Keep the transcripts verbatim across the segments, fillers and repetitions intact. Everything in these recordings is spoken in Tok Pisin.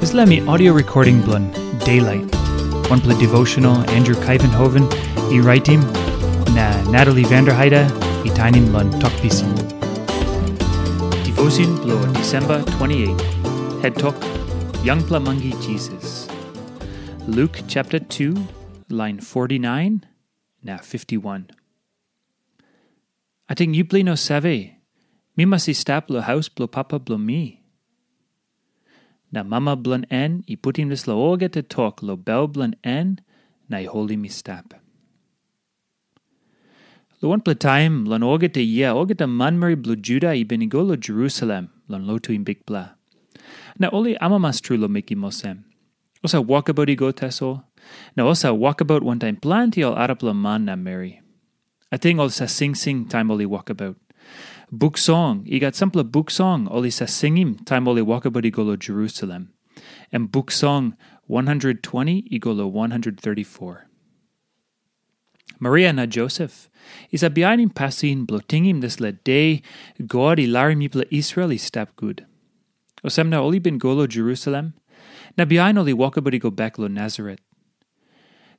Dispela mi audio recording bilong Daylight, wanpela devotional Andrew Kaivenhoven i raitim, na Natalie Vanderheide i tainim long Tok Pisin. Devotion bilong December twenty-eight, head tok, Yangpela Mangi Jesus. Luke chapter two, line forty-nine na fifty-one. Ating yupela i no save, mi mas i stap long haus bilong papa bilong mi. Na mama bilong en i putim dispela olgeta tok long bel bilong en na i holim i stap. Long wanpela taim, long olgeta yia, olgeta manmeri bilong Juda i bin i go long Jerusalem long lotuim Bikpela. Na ol i amamas tru long mekim olsem. Olsem wokabaut i go tasol, na olsem wokabaut wantaim planti ol arapela man na meri. Ating ol sa singsing taim ol i wokabaut. Buk song, i gat sampela buk song ol i sa singim taim ol i wokabaut i go long Jerusalem. Em buk song one hundred twenty i go long one hundred thirty-four. Maria na Josef i sa bihainim pasin bilong tingim dispela de God i larim mipela Israel i stap gut. Olsem na ol i bin go long Jerusalem, na bihain ol i wokabaut i go bek long Nasaret.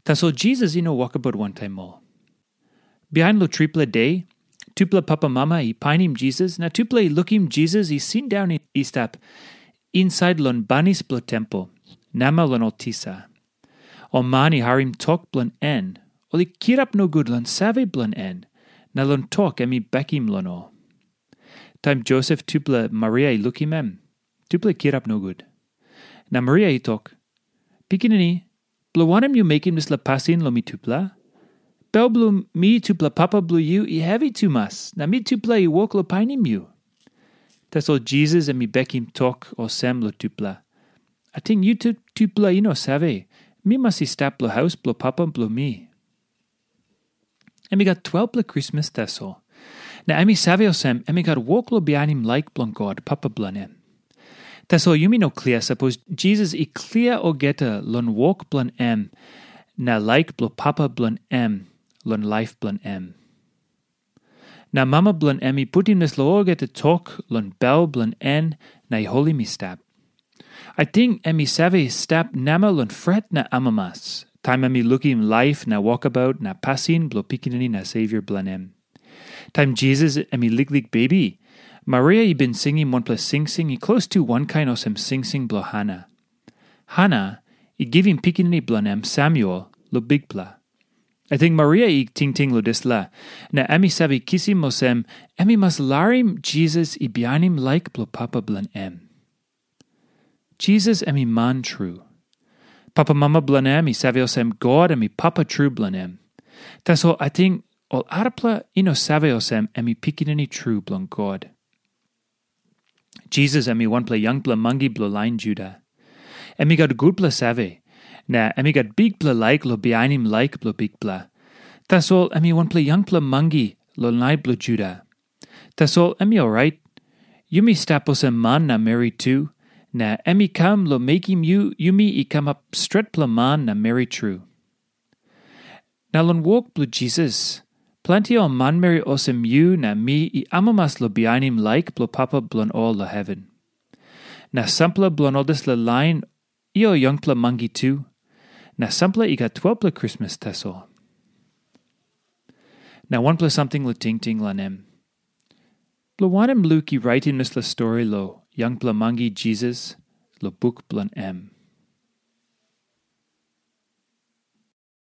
Tasol Jisas i no wokabaut wantaim ol. Bihain long tripela de, tupela papamama i painim Jisas, na tupela i lukim Jisas i sindaun i stap insait long banis bilong tempel, namel long ol tisa. Ol man i harim tok bilong en, ol i kirap nogut long save bilong en, na long tok em i bekim long ol. Taim Josep tupela Maria i lukim em, tupela i kirap nogut. Na Maria i tok, "Pikinini, bilong wanem yu mekim dispela pasin long mitupela? Bel bilong mi tupela papa bilong yu i hevi tumas, na mitupela i wok long painim yu." Tasol Jisas em i bekim tok olsem long tupela, "Ating yu tupela i no save, mi mas i stap long haus bilong papa bilong mi." Em i gat twelpela krismas tasol. Na em i save olsem em i gat wok long bihainim laik bilong God, Papa bilong em. Tasol yumi no klia sapos Jisas i klia olgeta long wok bilong em na laik bilong Papa bilong em long laip bilong em. Na mama bilong em i putim dispela olgeta tok long bel bilong en na i holim i stap. Ating em i save stap namel long fret na amamas, taim em i lukim laip na wokabaut na pasin bilong Pikinini na Savior bilong em. Taim Jisas em i liklik bebi, Maria i bin singim wanpela singsing i klostu wankain olsem singsing bilong Hana. Hana i givim pikinini bilong em Samuel long Bikpela. Ating Maria i tingting long dispela, na em i save kisim olsem em i mas larim Jisas i bihainim laik bilong Papa bilong em. Jisas em i man tru. Papamama bilong em i save olsem God em i Papa tru bilong em. Tasol ating ol arapela i no save olsem em i Pikinini tru bilong God. Jisas em i wanpela yangpela mangi bilong lain Juda. Em i gat gutpela save, na em i gat bikpela laik long bihainim laik bilong Bikpela. Tasol em i wanpela yangpela mangi long lain bilong Juda. Tasol em i orait. Yumi stap olsem man na meri tu, na em i kam long mekim yu yumi i kamap stretpela man na meri tru. Na long wok bilong Jisas, planti ol manmeri olsem yu na mi i amamas long bihainim laik bilong Papa bilong ol long heven. Na sampela bilong ol dispela lain i ol yangpela mangi tu, na sampela i gat twelpela krismas tasol. Na wanpela samting long tingting long em. Bilong wanem Luk i raitim dispela stori long yangpela mangi Jisas long buk bilong em?